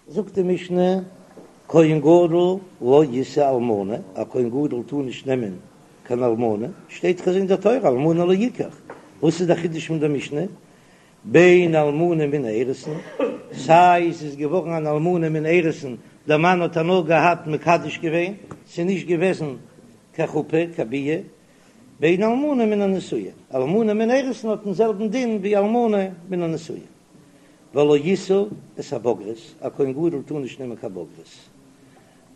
זאגט די משנה, כהן גדול לא ישא אלמנה, א כהן גדול טאר נישט נעמען קיין אלמנה, שטייט דאך אין דער תורה אלמנה לא יקח, וואס איז דער חידוש פון דער משנה? בין אלמנה מן האירוסין, סיי עס איז געווארן אן אלמנה מן האירוסין, דער מאן האט איר נאר געהאט מקדש געווען, ס'איז נישט געוועזן קיין חופה, קיין ביאה, בין אלמנה מן הנישואין, אלמנה מן האירוסין האט דעם זעלבן דין ווי אלמנה מן הנישואין. ולא ישא את הבוגרת, א כהן גדול טאר נישט נעמען קיין בוגרת.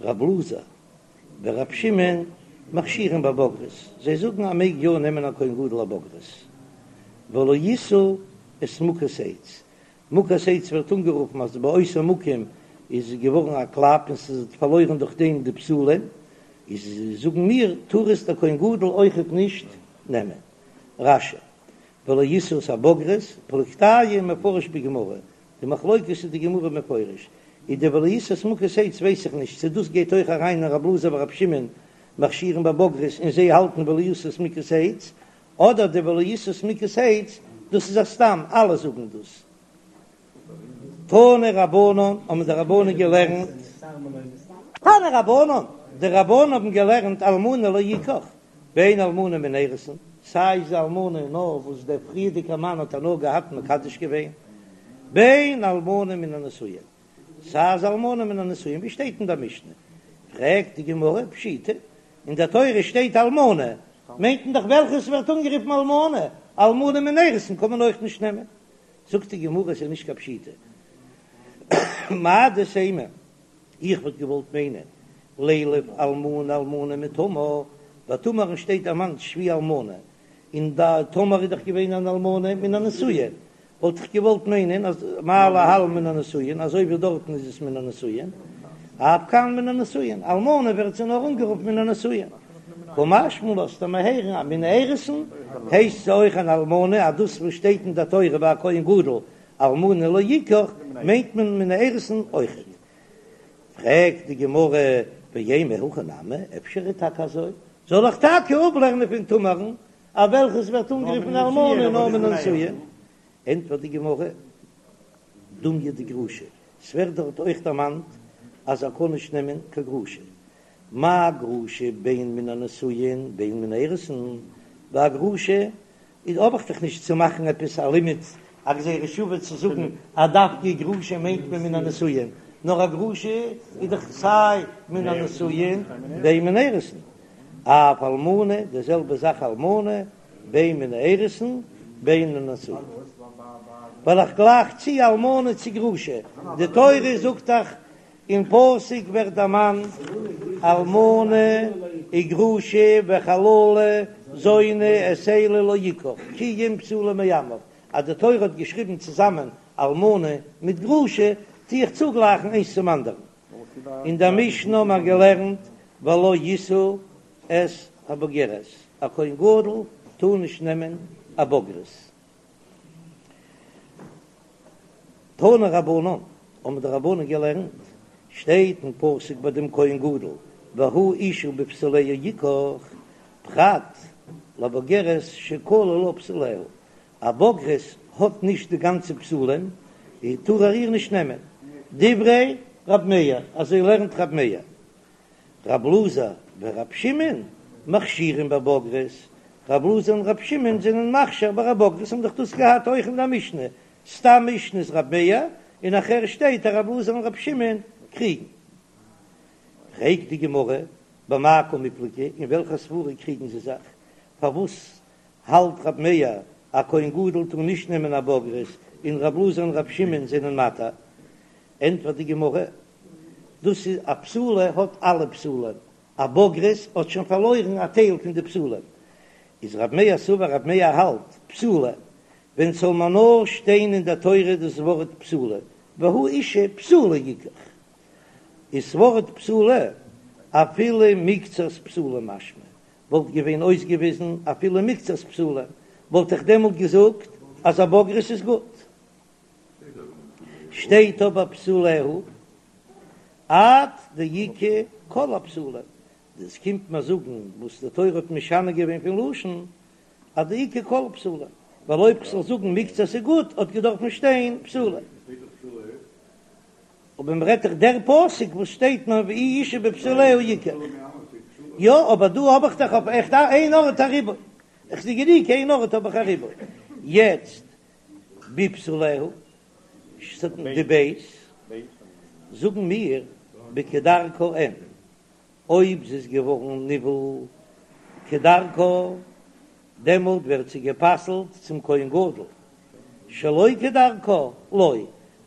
רב אלעזר ורב שמעון מכשירין בבוגרת, זיי זאגן אז מעג יא נעמען א כהן גדול א בוגרת. ולא ישא את מוכת עץ, מוכת עץ ווערט אנגערופן אז באותו מקום איז געווארן א קלאפ און ס'איז פארלוירן דורך דעם די בתולים, איז זאגן מיר טאר עס דער כהן גדול אויכעט נישט נעמען. רש"י, ולא ישא את הבוגרת, פלוגתייהו מפרש בגמרא, די מחלוקת איז די גמרא מפרש, איז די ולא ישא את מוכת עץ ווייס איך נישט צו דאס גייט אויך אריין אין רב אלעזר ורב שמעון מכשירין בבוגרת און זיי האלטן ולא ישא את מוכת עץ, אדער די ולא ישא את מוכת עץ דאס איז א סתם אלע זאגן דאס. תנו רבנן האבן די רבנן געלערנט. תנו רבנן, די רבנן האבן געלערנט אלמנה לא יקח, בין אלמנה מן האירוסין, סיי איז אלמנה נאר וואס דער פריערדיגער מאן האט איר נאר געהאט מקדש געווען, בין אלמנה מן הנישואין, סיי איז אלמנה מן הנישואין ווי שטייט אין דער משנה, פרעגט די גמרא פשיטא, אין דער תורה שטייט אלמנה, מיינט מען דאך וועלכעס ווערט אנגערופן אלמנה, אלמנה מן האירוסין קען מען אויך נישט נעמען, זאגט די גמרא עס איז נישט קיין פשיטא, מהו דתימא, איך וואלט געוואלט מיינען לילף אלמנה אלמנה מתמר, ביי תמר'ן שטייט דערמאנט שבי אלמנה, און די תמר איז דאך געווען אן אלמנה מן הנישואין, וואלט איך געוואלט מיינען אז מה להלן מן הנישואין, אזוי ווי דארטן איז עס מן הנישואין, אף כאן מן הנישואין, אלמנה ווערט זי נאר אנגערופן מן הנישואין. קא משמע לן לאזט ער מיר הערן אז מן האירוסין הייסט זי אויך אן אלמנה, אז דאס וואס שטייט אין דער תורה ביי א כהן גדול אלמנה לא יקח מיינט מען מן האירוסין אויכעט. פרעגט די גמרא ואימא הכי נמי, אפשר איז טאקע אזוי, זאל איך טאקע אפלערנען פון תמר'ן אז וועלכעס ווערט אנגערופן אלמנה נאר מן הנישואין? ענטפערט די גמרא, דומיא דגרושה, ס'ווערט דארט אויך דערמאנט אז ער קען נישט נעמען קיין גרושה, מה גרושה בין מן הנישואין בין מן האירוסין, ביי א גרושה איז האב איך דאך נישט צו מאכן עפעס א לימוד א גזירה שווה צו זאגן אז דווקא גרושה מיינט מען מן הנישואין, נאר א גרושה איז דאך סיי מן הנישואין בין מן האירוסין, אף אלמנה די זעלבע זאך אלמנה בין מן האירוסין בין מן הנישואין, ווייל איך גלייך צו אלמנה צו גרושה, די תורה זאגט דאך אין פסוק ווערט דערמאנט אלמנה וגרושה וחללה זונה את אלה לא יקח כי אם בתולה מעמיו, אז די תורה האט געשריבן צוזאמען אלמנה מיט גרושה טו איך צוגלייכן איינס צום אנדערן. אין דער משנה האט מען געלערנט ולא ישא את הבוגרת, א כהן גדול טאר נישט נעמען א בוגרת. תנו רבנן, האבן די רבנן געלערנט, שטייט אין פסוק ביי דעם כהן גדול, והוא אשה בבתוליה יקח, פרט לבוגרת שכלו לה בתוליה, א בוגרת האט נישט די גאנצע בתולים, טאר ער איר נישט נעמען, דברי רב מאיר, אזוי לערנט רב מאיר. רב אלעזר ורב שמעון מכשירים בבוגרת, רב אלעזר און רב שמעון זענען מכשיר ביי א בוגרת, האבן דאך דאס געהאט אויך אין דער משנה, סתם משנה איז רב מאיר, און נאכהער שטייט אז רב אלעזר און רב שמעון קריגן. פרעגט די גמרא, במאי קמיפלגי, אין וועלכע סברא קריגן זיי זיך? פארוואס האלט רב מאיר א כהן גדול טאר נישט נעמען א בוגרת, און רב אלעזר און רב שמעון זענען מתיר? ענטפערט די גמרא, דאס איז א בתולה האט אלע בתולים, א בוגרת האט שוין פארלוירן א טייל פון די בתולים, איז רב מאיר סבר רב מאיר האלט בתולה, ווען ס'זאל מען נאר שטיין אין דער תורה דאס ווארט בתולה, והוא אשה בתולה יקח, איז ס'ווארט בתולה אפילו מקצת בתולים משמע, וואלט געווען אויסגעוויזן אפילו מקצת בתולים, וואלט איך דעמאלט געזאגט אז א בוגרת איז גוט. שטייט אבער בתוליה עד דאיכא כל הבתולים, דאס קומט מיר זאגן וואס די תורה האט משנה געווען פון לשון עד דאיכא כל הבתולים, ווייל אויב כ'זאל זאגן מקצת איז גוט האט געדארפן שטיין בתולה. אבער מ'רעדט דאך דער פסוק וואס שטייט נאר ואי אשה בבתוליה יקח. יא, אבער דא האב איך דאך אויף עכט איין ארט א ריבוי. איך זע גענוג איין ארט האב איך א ריבוי. יעצט בבתוליה, די ב', זאגן מיר בכדרכה אין, אויב זי איז געווארן נבעל כדרכה, דעמאלט ווערט זי גע'פסל'ט צום כהן גדול, שלא כדרכה לא,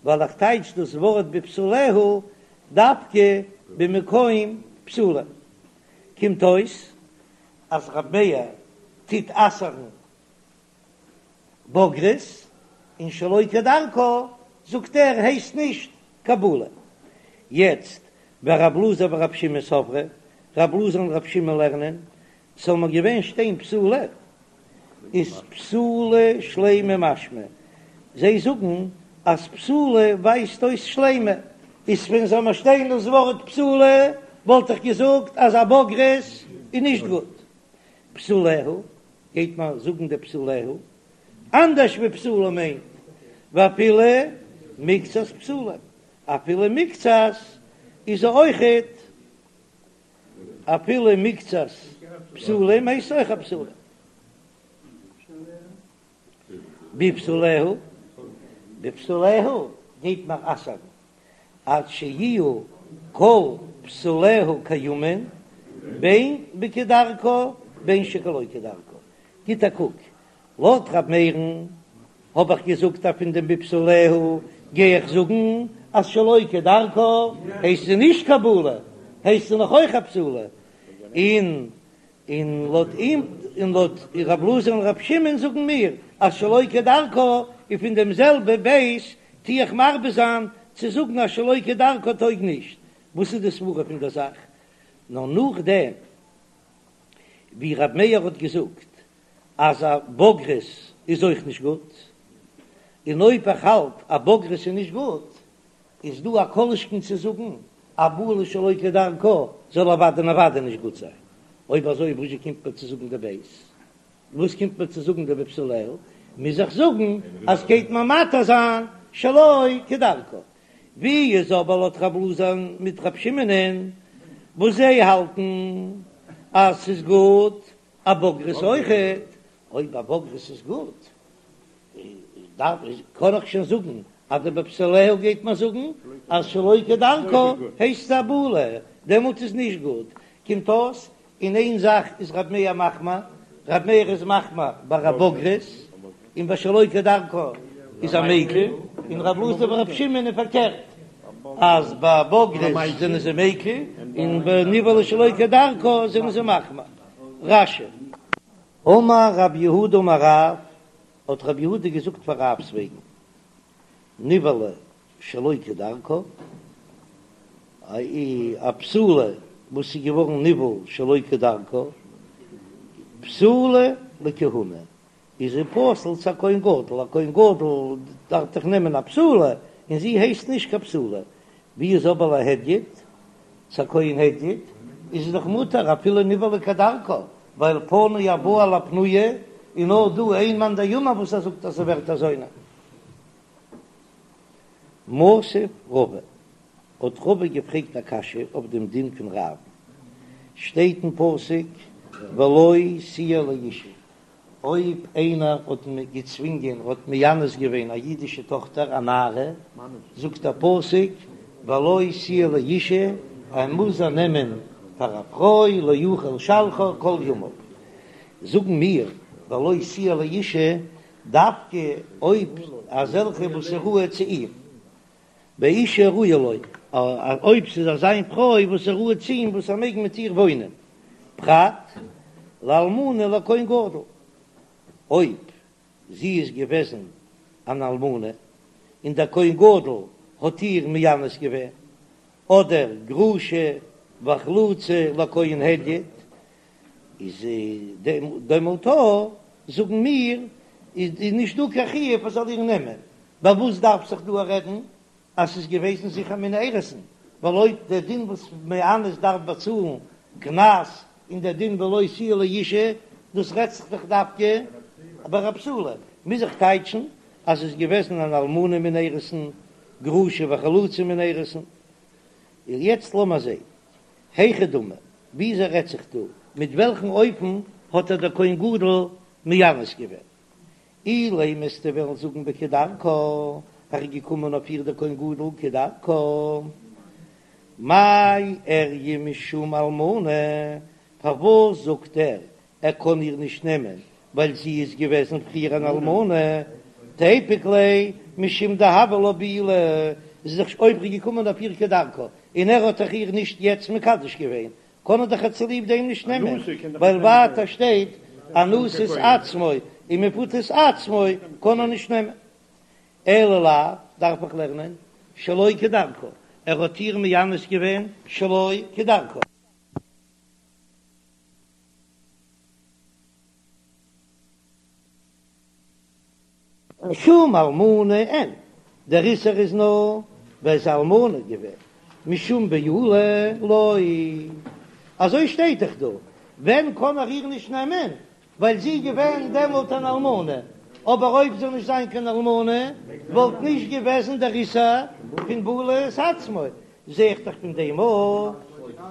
ווייל איך טייטש דאס ווארט בבתוליה דווקא במקום בתולים. קומט אויס אז רב מאיר טוט אסר'ן בוגרת, און שלא כדרכה זאגט ער הייסט נישט קיין בעולה. יעצט ורב אלעזר ורב שמעון סברי, רב אלעזר און רב שמעון לערנען, ס'זאל נאר געווען שטיין בתולה, איז בתולה שלימה משמע, זיי זאגן אז בתולה ווייזט אויס שלימה, איז ווען זאל מיר שטיין דאס ווארט בתולה וואלט איך געזאגט אז א בוגרת איז נישט גוט. בתוליה, גייט מען זאגן די בתוליה, אנדערש ווי בתולה מיינט, ואפילו מקצת בתולים, אפילו מקצת איז אויכעט, אפילו מקצת בתולים הייסט אויך א בתולה. בבתוליה, בבתוליה גייט מען אסר'ן עד שיהיו כל בתוליה קיימין בין בכדרכה בין שלא כדרכה, גיט א קוק, לויט ר' מאיר'ן האב איך געזאגט אז פון דעם בבתוליה גיי איך זאגן אז שלא כדרכה הייסט זי נישט קיין בעולה, הייסט זי נאך אויך א בתולה, און און לויט אים און לויט רב אלעזר און רב שמעון זאגן מיר אז שלא כדרכה און פון דעם זעלבע ב' טו איך מרבה זיין צו זאגן אז שלא כדרכה טויג נישט, וואס איז די סברא פון דער זאך? נאר נאכדעם ווי רב מאיר האט געזאגט אז א בוגרת איז אויך נישט גוט, און אויב איך האלט א בוגרת איז נישט גוט, איז דא א כל שכן צו זאגן א בעולה שלא כדרכה זאל אוודאי און אוודאי נישט גוט זיין. אויב אזוי וואזשע קומט מיר צו זאגן די ב'? וואס קומט מיר צו זאגן די בבתוליה? מוז איך זאגן אז גייט מען מתיר זיין שלא כדרכה. ווי איז אבער לויט רב אלעזר מיט רב שמעונ'ען וואס זיי האלטן אז ס'איז גוט א בוגרת אויכעט? אויב א בוגרת איז גוט דארף קען איך שוין זאגן אז די בבתוליה גייט מען זאגן אז שלא כדרכה הייסט א בעולה, דעמאלט איז נישט גוט, קומט אויס אין איין זאך איז רב מאיר מחמיר, רב מאיר איז מחמיר ביי א בוגרת, און ביי שלא כדרכה איז ער מיקל, און רב אלעזר ורב שמעון איז פארקערט, אז ביי בוגרת זענען זיי מיקל, און ביי נבעלה שלא כדרכה זענען זיי מחמיר. רש"י. אמר רב יהודה אמר רב, האט רב יהודה געזאגט פאר רב'ס וועגן, נבעלה שלא כדרכה, א בתולה וואס איז געווארן נבעל שלא כדרכה, פסולה לכהונה, איז זי פסול צו א כהן גדול, א כהן גדול דארף דאך נעמען א בתולה, און זי הייסט נישט קיין בתולה, ווי איז אבער להדיוט, צו א כהן הדיוט איז עס דאך מותר אפילו נבעלה כדרכה, ווייל פנוי הבא על הפנויה, און נאר דא איין מאן דאמר וואס ער זאגט אז ס'ווערט א זונה. מתיב רבא, האט רבא געפרעגט א קשיא אויף דעם דין פון רב, שטייט אין פסוק ולו תהיה לאשה, אויב איינער האט געצווינגען, האט מאנס געווען א אידישע טאכטער א נערה, זאגט דער פסוק ולו תהיה לאשה, ער מוז איר נעמען פאר א פרוי, לא יוכל לשלחה כל ימיו. זאגן מיר ולו תהיה לאשה דווקא אויב אזעלכע וואס איז ראוי צו אים, באשה הראויה לו, אויב ס'איז אזא פרוי וואס איז ראוי צו אים וואס ער מעג מיט איר וואוינען, פרט לאלמנה לכהן גדול, אויב זי איז געוועזן אן אלמנה און דער כהן גדול האט איר מאנס געווען, אדער גרושה וחלוצה לכהן הדיוט, איז דעמאלט זאגן מיר איז נישט דא קיין חיוב ער זאל איר נעמען, ביי וואס דארף זיך דא רעדן אז ס'איז געוועזן זיכער מן האירוסין, ווייל אויב דער דין וואס מאנס דארף באצאלן קנס און דער דין ולו תהיה לאשה דאס רעדט זיך דאך דווקא ביי א בתולה, מוז איך טייטשן אז ס'איז געוועזן אן אלמנה מן האירוסין. גרושה וחלוצה מן האירוסין. און יעצט לאמער זעהן, היכי דמי, וויאזוי רעדט זיך דא, מיט וועלכן אופן האט איר דער כהן גדול מאנס געווען? אילימא וועסטו וועלן זאגן בכדרכה, ער איז געקומען אויף איר דער כהן גדול כדרכה, מאי איריא משום אלמנה, פארוואס זאגט ער ער קען איר נישט נעמען ווייל זי איז געוועזן פריער אן אלמנה, תיפוק ליה משום דהוה לה בעולה, זי איז דאך אויב ער איז געקומען אויף איר כדרכה און ער האט דאך איר נישט יעצט מקדש געווען, קען ער דאך איר צוליב דעם נישט נעמען, ווייל ווייטער שטייט אנוסת עצמו און מפותת עצמו קען ער נישט נעמען. אלא לאו, דארף איך לערנען שלא כדרכה, ער האט איר מאנס געווען שלא כדרכה. משום אלמנה אין, דער איסור איז נאר ווייל זי איז אלמנה געווען, משום בעולה לא, אזוי שטייט דאך דא, ווען קען ער איר נישט נעמען, ווייל זי איז געווען דעמאלט אן אלמנה, אבער אויב זאל נישט זיין קיין אלמנה וואלט נישט געוועזן דער איסור פון בעילת עצמו, זע איך דאך פון דעם אויך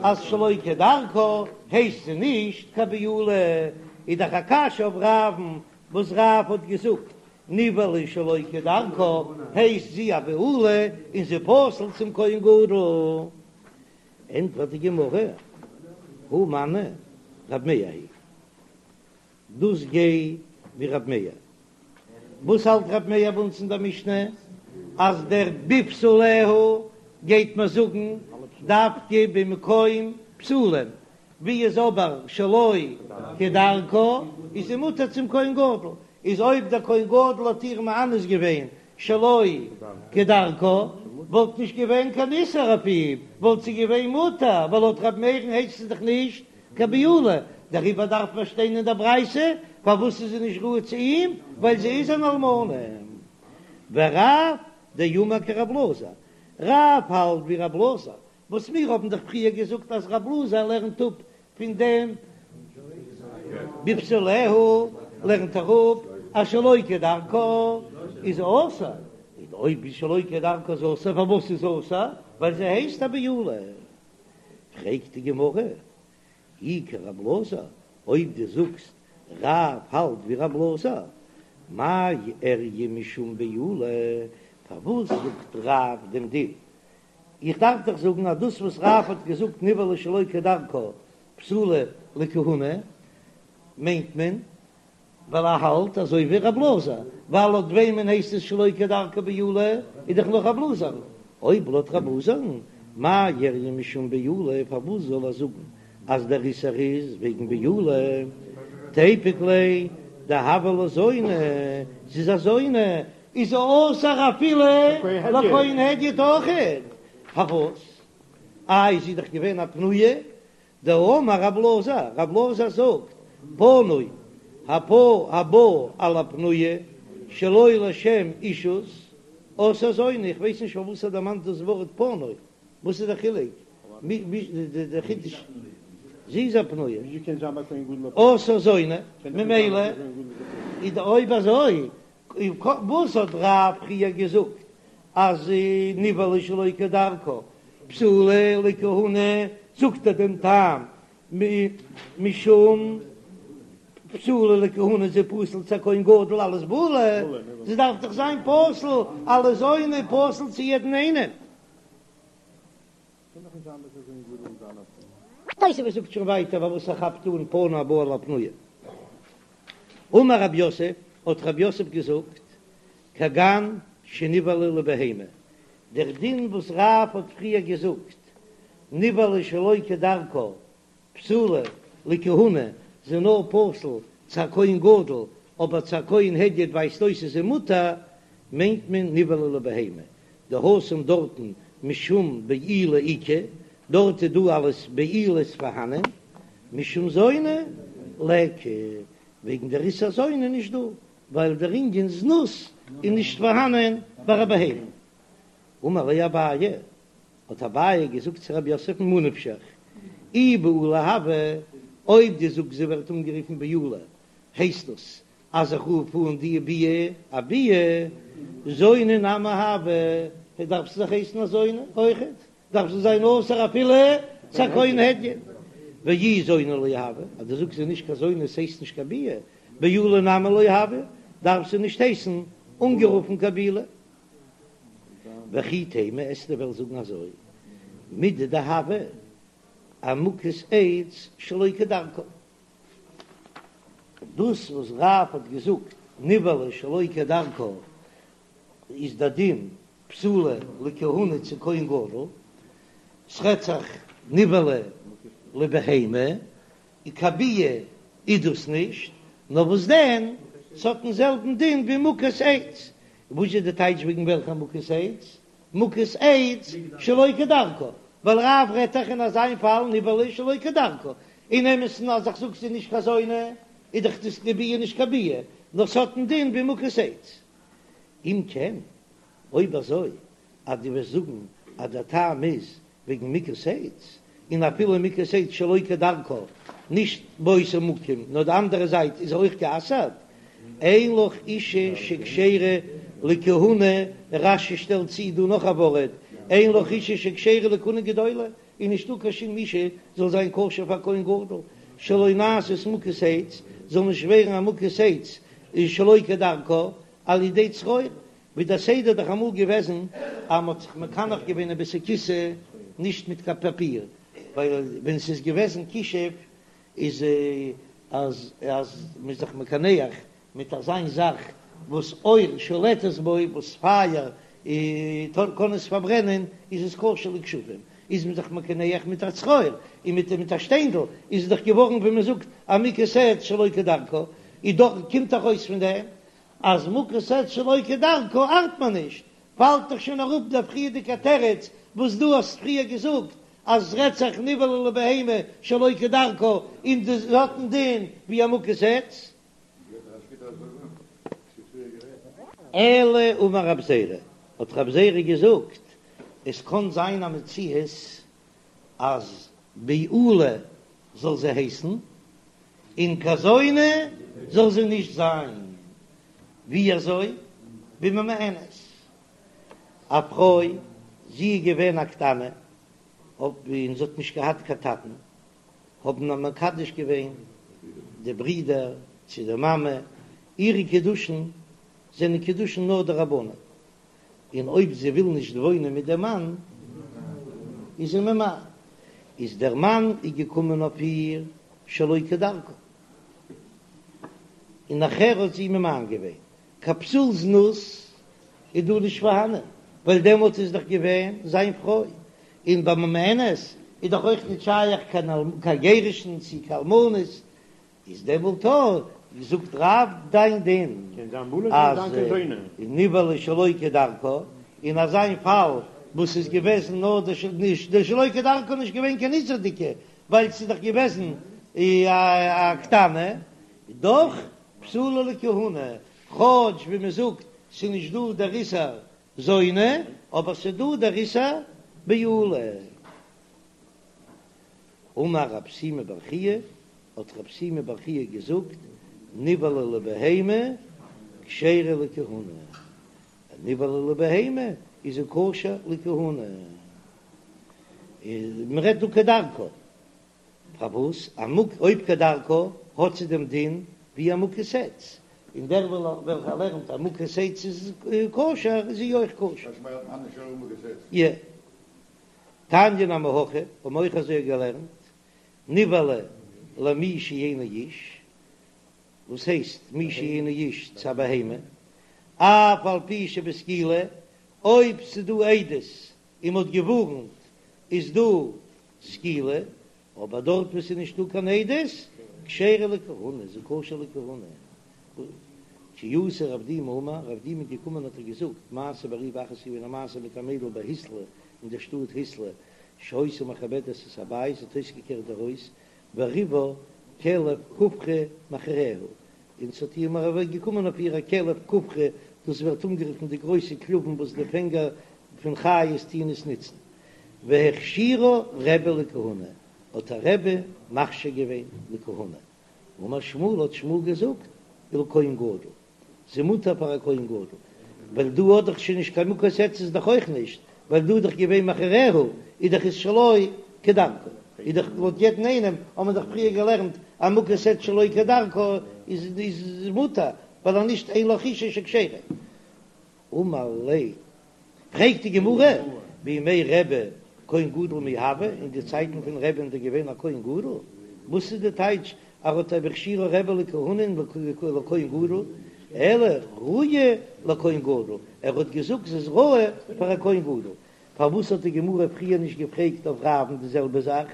אז שלא כדרכה הייסט זי נישט קיין בעולה, איז דאך א קשיא אויף רב'ן וואס רב האט געזאגט נבעלה שלא כדרכה הייסט זי א בעולה און זי פסול צום כהן גדול, ענטפערט די גמרא, הא מני רב מאיר היא דאס גייט ווי רב מאיר. וואס האלט רב מאיר ביי אונז אין דער משנה אז דער בבתוליה גייט מען זאגן דווקא במקום בתולים, ווי איז אבער שלא כדרכה איז זי מותר צום כהן גדול, איז אויב דער כהן גדול האט איר מאנס געווען שלא כדרכה וואלט נישט געווען קיין איסור אויף אים, וואלט זי געווען מותר, ווייל לויט רב מאיר'ן הייסט עס דאך נישט קיין בעולה, דעריבער דארף מען שטיין אין דער ברייתא, פארוואס איז זי נישט ראוי צו אים, ווייל זי איז אן אלמנה. ורב דאמר כרב אלעזר, רב האלט ווי רב אלעזר, וואס מיר האבן דאך פריער געזאגט אז רב אלעזר לערנט אפ פון דעם בבתוליה לערנט ער אפ אז שלא כדרכה איז אסור, און אויב איז שלא כדרכה איז אסור, פארוואס איז אסור? ווייל זי הייסט א בעולה. פרעגט די גמרא, אי כרב אלעזר, אויב דו זאגסט רב האלט ווי רב אלעזר, מאי איריא משום בעולה, פארוואס זאגט רב דעם דין? איך דארף דאך זאגן אז דאס וואס רב האט געזאגט נבעלה שלא כדרכה פסולה לכהונה מיינט מען ווייל ער האלט אזוי ווי רב אלעזר, ווייל לויט וועמען הייסט עס שלא כדרכה בעולה איז דאך נאר רב אלעזר, אויב לויט רב אלעזר'ן מאי איריא משום בעולה פארוואס זאל ער זאגן אז דער איסור איז וועגן בעולה, תיפוק ליה דהוה לה זונה, זי איז א זונה, איז זי אסור אפילו לכהן הדיוט אויכעט, פארוואס? איי זי איז דאך געווען א פנויה, דאמר רב אלעזר, רב אלעזר זאגט, פנוי הפא הבא על הפנויה שלא לשם אישות, עשאה זונה, איך ווייס נישט פארוואס ער דערמאנט דאס ווארט פנוי, וואס איז דער חילוק? דער חידוש, זי איז א פנויה, עשאה זונה, ממילא איז אויב אזוי וואס האט רב פריער געזאגט אז נבעלה שלא כדרכה פסולה לכהונה, זאגט ער דעם טעם משום פסולה לכהונה זי פסול צו א כהן גדול אלס בעולה, זי דארף דאך זיין פסול אלס זונה פסול צו יעדן איינעם. תוספות זאגט שוין ווייטער פארוואס ער כאפט אן פנוי הבא על הפנויה. אמר רב יוסף, האט רב יוסף געזאגט, כגון שנבעלה לבהמה, דער דין וואס רב האט פריער געזאגט, נבעלה שלא כדרכה פסולה לכהונה, זי נאר פסול צו א כהן גדול, אבער צו א כהן הדיוט ווייזט אויס איז זי מותר, מיינט מען נבעלה לבהמה, דהתם דארטן משום בעילה איכא, דארט איז דא אלעס בעילות פארהאנען, משום זונה ליכא, וועגן דער איסור זונה נישט דא, ווייל דער ענין זנות איז נישט פארהאנען ביי א בהמה. אמר ליה אביי, האט אביי געזאגט צו רב יוסף ממה נפשך, אי בעולה הוה, אויב דו זאגסט זי ווערט אנגערופן בעולה, הייסט דאס אז איך רוף אן די ביאה א ביאה, זונה נמי הוה. דארף זי דאך הייסן א זונה אויכעט, דארף זי זיין אסור אפילו צו א כהן הדיוט. ואי זונה לא הויא, אז דו זאגסט זי איז נישט קיין זונה עס הייסט נישט קיין ביאה, בעולה נמי לא הויא, דארף זי נישט הייסן אנגערופן קיין בעולה. וכי תימא וועסטו וועלן זאגן אזוי, מידי דהוה אמוכת עץ שלא כדרכה. דאס וואס רב האט געזאגט נבעלה שלא כדרכה איז דער דין פסולה לכהונה צו כהן גדול, ס'רעדט זיך נבעלה לבהמה, און קיין ביאה איז דאס נישט, נאר וואס דען ס'האט דעם זעלבן דין ווי מוכת עץ, וואס איז די טייטש וועגן וועלכע מוכת עץ? מוכת עץ שלא כדרכה, ווייל רב רעדט דאך אין אזיין פאל נבעלה שלא כדרכה, אין אמת'ן אז איך זאג ס'איז נישט קיין זונה איז דאך דאס די ביאה נישט קיין ביאה, נאר ס'האט דעם דין ווי מוכת עץ. אם כן, אויב אזוי אז דו וועסט זאגן אז דער טעם איז וועגן מוכת עץ, און אפילו מוכת עץ שלא כדרכה, נישט באותו מקום נאר די אנדערע זייט איז אויך גע'אסר'ט, אין לך אישה שכשרה לכהונה, רש"י שטעלט צו דא נאך א ווארט, אין לך אישה שכשרה לכהונה גדולה, איז נישטא קיין שום אישה זאל זיין כשר פאר כהן גדול, שלא נעשית מוכת עץ, זאל נישט ווערן א מוכת עץ שלא כדרכה על ידי צרור, ווי דער סדר איז דאך אמאל געוועזן אז מ'האט זיך מקנח געווען אין בית הכסא נישט מיט קיין פאפיר, ווייל ווען ס'איז געוועזן כישוף איז אז אז מ'איז זיך מקנח מיט אזיין זאך וואס אור שולטת בו, וואס פייער קען עס פארברענען, איז עס כשר לכשפים, איז מען זיך מקנח מיט א צרור און מיט מיט א שטיינדל, איז עס דאך געווארן ווי מ'זאגט א מוכת עץ שלא כדרכה, איז דאך קומט דאך אויס פון דעם אז מוכת עץ שלא כדרכה ארט מען נישט, פאלט דאך שוין אראפ דער פריערדיגער תירוץ וואס דו האסט פריער געזאגט אז עס רעדט זיך נבעלה לבהמה שלא כדרכה און דאס האט דעם דין ווי א מוכת עץ. אלא אמר רב זירא, האט רב זירא געזאגט, עס קען זיין א מציאות אז בעולה זאל זי הייסן, און קיין זונה זאל זי נישט זיין. ווי אזוי? בממאנת. א פרוי, זי איז געווען א קטנה, און זי האט נישט געהאט קיין טאטן, האבן איר מקדש געווען די ברידער צו די מאמע, אירע קידושין זענען קידושין נאר דרבנן, און אויב זי וויל נישט וואוינען מיט דעם מאן איז זי ממאן, איז דער מאן איז געקומען אויף איר שלא כדרכה, און נאכער האט זי ממאן געווען, קיין פסול זנות איז דא נישט פארהאנען, ווייל דעמאלט איז דאך געווען זיין פרוי, און ביי ממאנת איז דאך אויך נישט שייך קיין גירושין צו קיין אלמנות, איז דעמאלט זאגט רב דיין דין אז נבעלה שלא כדרכה, אין אזיין פאל וואס איז געוועזן נאר די נישט די שלא כדרכה נישט געווען קיין איסור'דיגע ווייל ס'איז דאך געוועזן א קטנה, דאך פסולה לכהונה, כאטש ווי מ'זאגט ס'איז נישט דא דער איסור זונה, אבער ס'איז דא דער איסור בעולה. אמר רב שימי בר חייא, האט רב שימי בר חייא געזאגט, נבעלה לבהמה כשרה לכהונה, נבעלה לבהמה איז זי כשר לכהונה, מען רעדט דא כדרכה, פארוואס א מוק אויב כדרכה האט זי דעם דין ווי א מוכת עץ, און דער וועלכער לערנט אז מוכת עץ איז כשר איז זי אויך כשר. תניא נמי הכי, האבן אויך אזוי געלערנט, נבעלה למי שאינו איש, וואס הייסט מי שאינו איש צו א בהמה, אף על פי שבסקילה, אויב ס'דא עדות און מ'האט געווארנט איז דא סקילה, אבער דארט וואו ס'איז נישטא קיין עדות, כשרה לכהונה, איז זי כשר לכהונה. כי אתא רב דימי אמר, רב דימי איז געקומען האט ער געזאגט, מעשה בריבה אחת איז געווען א מעשה מיט א מיידל בהיתלא אין דער שטאט היתלא, שהיתה מכבדת את הבית, זי האט אויסגעקערט די הויז, וריבה כלב כופרי מאחריה, און ס'האט איר מרבה געקומען אויף איר א כלב כופרי, דאס ווערט אנגערופן די גרויסע כלבים וואס די פענגער פון חיות טוען עס נוצן, והכשירה רבי לכהונה, האט איר רבי מכשיר געווען לכהונה, אמר שמואל האט שמואל געזאגט, ולכהן גדול, זי מותר פאר א כהן גדול. ווייל דא האט דאך שוין נישט קיין מוכת עץ איז דאך אויך נישט, ווייל דא איז דאך געווען מכריה, איז דאך איז שלא כדרכה, איז דאך לויט יעדן איינעם האט מען דאך פריער געלערנט אז מוכת עץ שלא כדרכה איז איז מותר, ווייל אז נישט אין לך אשה שכשרה. אמר ליה, פרעגט די גמרא, בימי רבי כהן גדול מי הוה, אין די צייטן פון רבי'ן איז דא געווען א כהן גדול? וואס איז די טייטש אז ער האט הכשירו רבי לכהונה לכהן גדול, אלא ראויה לכהן גדול, ער האט געזאגט זי איז ראוי פאר א כהן גדול, פארוואס האט די גמרא פריער נישט געפרעגט אויף רב'ן די זעלבע זאך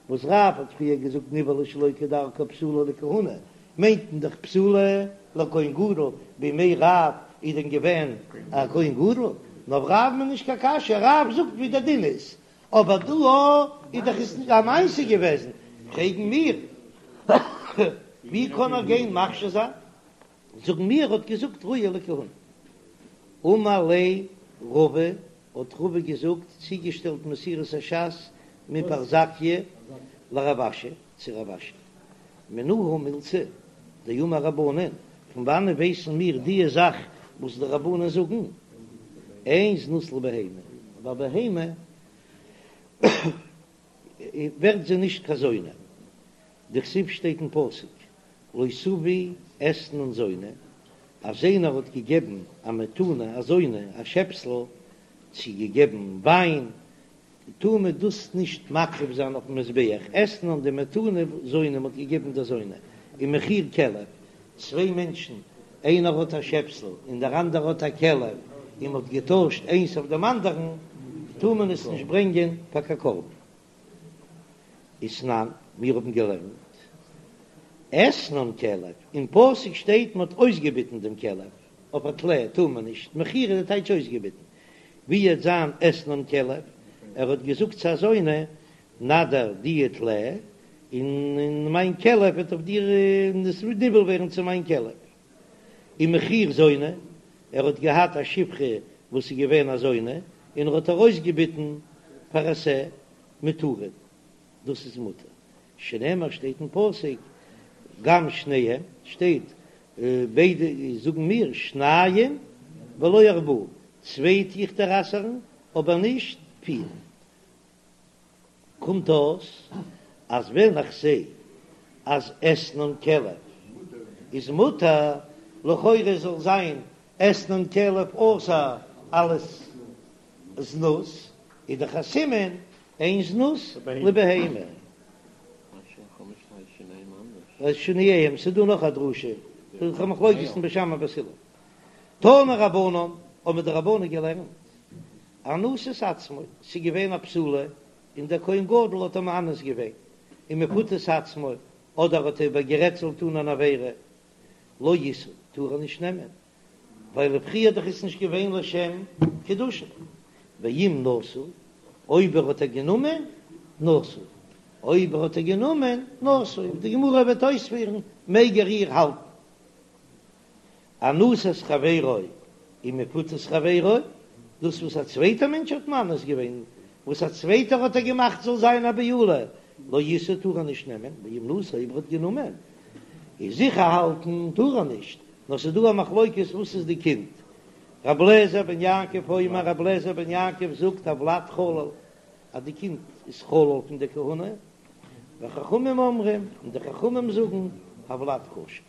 וואס רב האט פריער געזאגט נבעלה שלא כדרכה פסולה לכהונה, מיינט מען דאך פסולה לכהן גדול, בימי רב איז דען געווען א כהן גדול? נאר אויף רב'ן איז נישט קיין קשיא, רב זאגט ווי דער דין איז, אבער דא איז דאך עס א מעשה געוועזן, פרעגן מיר ווי קען ער גיין מכשיר זיין? זאגן מיר ער האט געזאגט ראויה לכהונה. אמר ליה רבא, האט רבא געזאגט, צוגעשטעלט מסורת הש"ס מפרזקיא לרב אשי, צו רב אשי, מנא הא מילתא דאמור רבנן, פון וואנען ווייסן מיר דיע זאך וואס די רבנן זאגן, אין זנות לבהמה, ביי בהמה ווערט זי נישט קיין זונה, דכתיב שטייט אין פסוק לא תביא אתנן זונה, אז איינער האט געגעבן א מתנה א זונה א שעפסל, צו געגעבן וויין, טאר מען דאס נישט מקריב זיין אויפן מזבח, אתנן די מתנה זונה מען האט געגעבן דער זונה, ומחיר כלב, צוויי מענטשן איינער האט א שעפסל און דער אנדערער האט א כלב, און מען האט געטוישט איינס אויף דעם אנדערן, טאר מען עס נישט ברענגען פאר קיין קרבן. ותנן, מיר האבן געלערנט, אתנן כלב, אין פסוק שטייט מען האט אויסגעביטן דעם כלב, אויף א טלה טאר מען נישט, מחיר איז די טייטש אויסגעביטן, ווי וועט זיין אתנן כלב, ער האט געזאגט צו א זונה, נא דיר די טלה, און מיין כלב וועט אויף דיר נבעל ווערן צו מיין כלב. ומחיר זונה, ער האט געהאט א שפחה וואס איז געווען א זונה, און ער האט איר אויסגעביטן פאר א שה מותרין, דאס איז מותר, שנאמר שטייט אין פסוק, גם שניהם, שטייט ביידע זאגן מיר שניים ולא ארבעה, צוויי טו איך דיר אסר'ן אבער נישט פיר. קומט אויס אז ווען איך זע אז אתנן כלב איז מותר, לכאורה זאל זיין אתנן כלב אסור אלס זנות, איז דאך א סימן אין זנות לבהמה. שניהם, ס'איז דא נאך א דרשה, ס'איז א מחלוקת אין בית שמאי ובית הלל. תנו רבנן, האבן די רבנן געלערנט, אנוסת עצמו, ס'איז געווען א בתולה און דער כהן גדול האט איר מאנס געווען, ומפותת עצמו, אדער האט ער איבערגערעדט זאל טון אן עבירה, לא ישא, טאר ער נישט נעמען, ווייל פריער דאך איז נישט געווען לשם קידושין, ואם נשא, אויב ער האט איר גענומען, נשוי, אויב ער האט איר גענומען, נשוי, ווי די גמרא וועט אויספירן, מעג ער איר האלטן. אנוסת חברו ומפותת חברו, דאס וואס א צווייטער מענטש האט מאנס געווען, וואס א צווייטער האט איר געמאכט זאל זיין א בעולה, לא ישא טאר ער נישט נעמען, ואם נשא אויב ער האט גענומען, איז זיכער האלטן טאר ער נישט, נאר ס'איז דא א מחלוקת וואס איז די קינד, רבי אליעזר בן יעקב אומר, רבי אליעזר בן יעקב זאגט הולד חלל, אז די קינד איז חלל פון די כהונה, וחכמים אומרים, און די חכמים זאגן הולד כשר.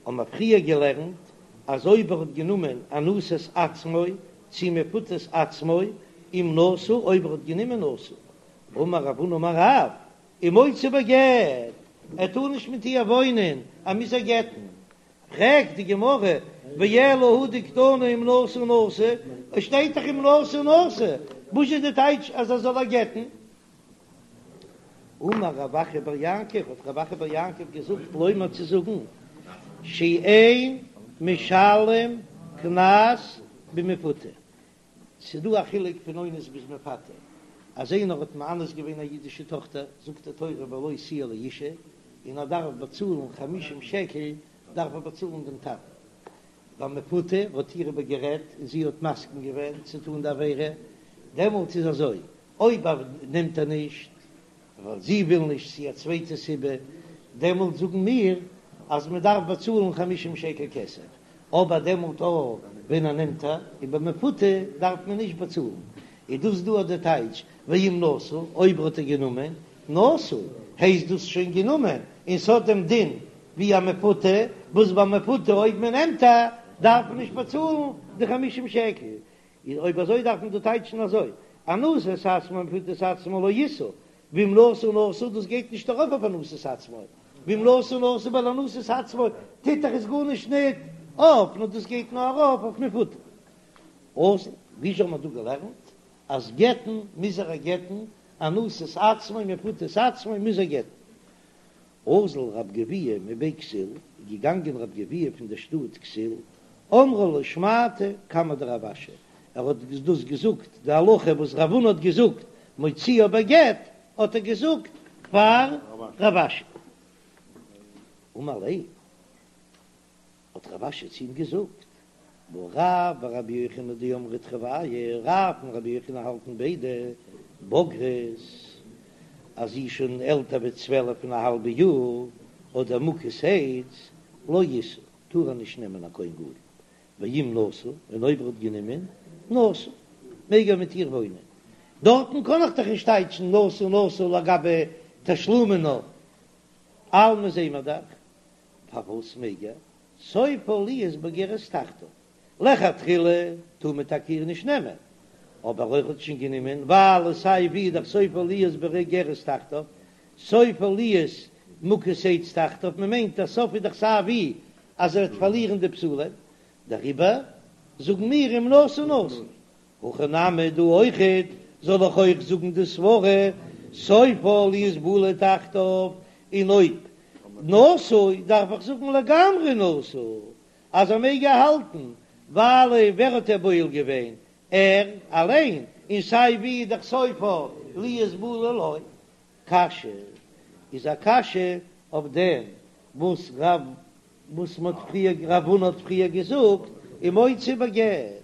האבן מיר פריער געלערנט אז אויב ער האט גענומען אנוסת עצמו צי מפותת עצמו אם נשא אויב ער האט גענומען נשוי, אמר רב הונא אמר רב, ומוציא בגט, ער טאר נישט מיט איר וואוינען, ער מוז איר גט'ן. פרעגט די גמרא, ואלא הא דקתני אם נשא נשוי, עס שטייט דאך אם נשא נשוי, וואס איז די טייטש אז ער זאל איר גט'ן? אמר רב אחא בר יעקב, האט רב אחא בר יעקב געזאגט לומר צו זאגן, שאין משלם קנס במפותה, ס'איז דא א חילוק פון אונס ביז מפתה, אז איינער האט מאנס געווען א אידישע טאכטער, זאגט די תורה ולו תהיה לאשה, און ער דארף באצאלן חמישים שקל, דארף ער באצאלן דעם טאטן. ביי מפותה האט איר איבער גערעדט און זי האט מסכים געווען צו טון די עבירה, דעמאלט איז אזוי, אויב נעמט ער נישט ווייל זי וויל נישט צי א צווייטע סיבה, דעמאלט זאגן מיר אז מען דארף באצאלן חמישים שקל כסף. אבער דעמאלט אויך ווען ער נעמט איר און במפותה דארף מען נישט באצאלן, איז דאס דא די טייטש ואם נשא, אויב האט ער גענומען, נשוי, הייסט דאס שוין גענומען, און ס'האט דעם דין ווי א מפותה, וואס ביי מפותה אויב מען נעמט איר דארף מען נישט באצאלן די חמישים שקל, איז אויב אזוי דארף מען דא טייטשן אזוי, אנוסת עצמו ומפותת עצמו לא ישא, ואם נשא נשוי דאס גייט נישט ארויף אויף אנוסת עצמו, ואם נשא נשוי ווייל אנוסת עצמו טוט דאך עס גארנישט ניט אויף, נאר דאס גייט נאר ארויף אויף מפותה. אזל, ווי האט מען דא געלערנט אז גט'ן מוז ער גט'ן, אנוסת עצמו ומפותת עצמו מוז ער גט'ן. אזל רב גביהה מבי כסיל, איז געגאנגען רב גביהה פון דער שטאט כסיל, אמרה לשמעתא קמיה דרב אשי, ער האט דאס געזאגט די הלכה וואס רב הונא האט געזאגט מוציאה בגט, האט ער געזאגט פאר רב אשי. אמר ליה. האט רב אשי צו אים געזאגט, והא רב ורבי יוחנן דאמרי תרוייהו, רב און רבי יוחנן האלטן ביידע בוגרת אז זי איז שוין עלטער ווי צוועלף און א האלבע יאר, אדער מוכת עץ, לא ישא, טאר ער נישט נעמען א כהן גדול, ואם נשא, און אויב ער האט גענומען, נשוי, מעג ער מיט איר וואוינען. דארטן קען איך דאך נישט טייטשן נשא נשוי לגבי תשלומין נאר אלמא זעהן מיר דאך פארוואס מעג ער? סופה להיות בוגרת תחתיו, לכתחילה טאר מען טאקע איר נישט נעמען, אבער אויב האט שוין גענומען, ווייל סיי ווי איז דאך סופה להיות בוגרת תחתיו, סופה להיות מוכת עץ תחתיו, מען מיינט אז סוף איז דאך סיי ווי אז ער וועט פארלירן די בתולים, דעריבער זאגן מיר אם נשא נשוי, הכא נמי דא אויכעט זאל איך אויך זאגן די סברה סופה להיות בעולה תחתיו, און אויב נשוי דארף איך זאגן לגמרי נשוי אז ער מעג איר האלטן, ווייל ווער האט איר בועל געווען? ער אליין, און סיי ווי איז דאך סופה להיות בעולה לו. קשיא איז א קשיא אויף דעם וואס רב וואס מ'האט פריער רב הונא האט פריער געזאגט ומוציא בגט.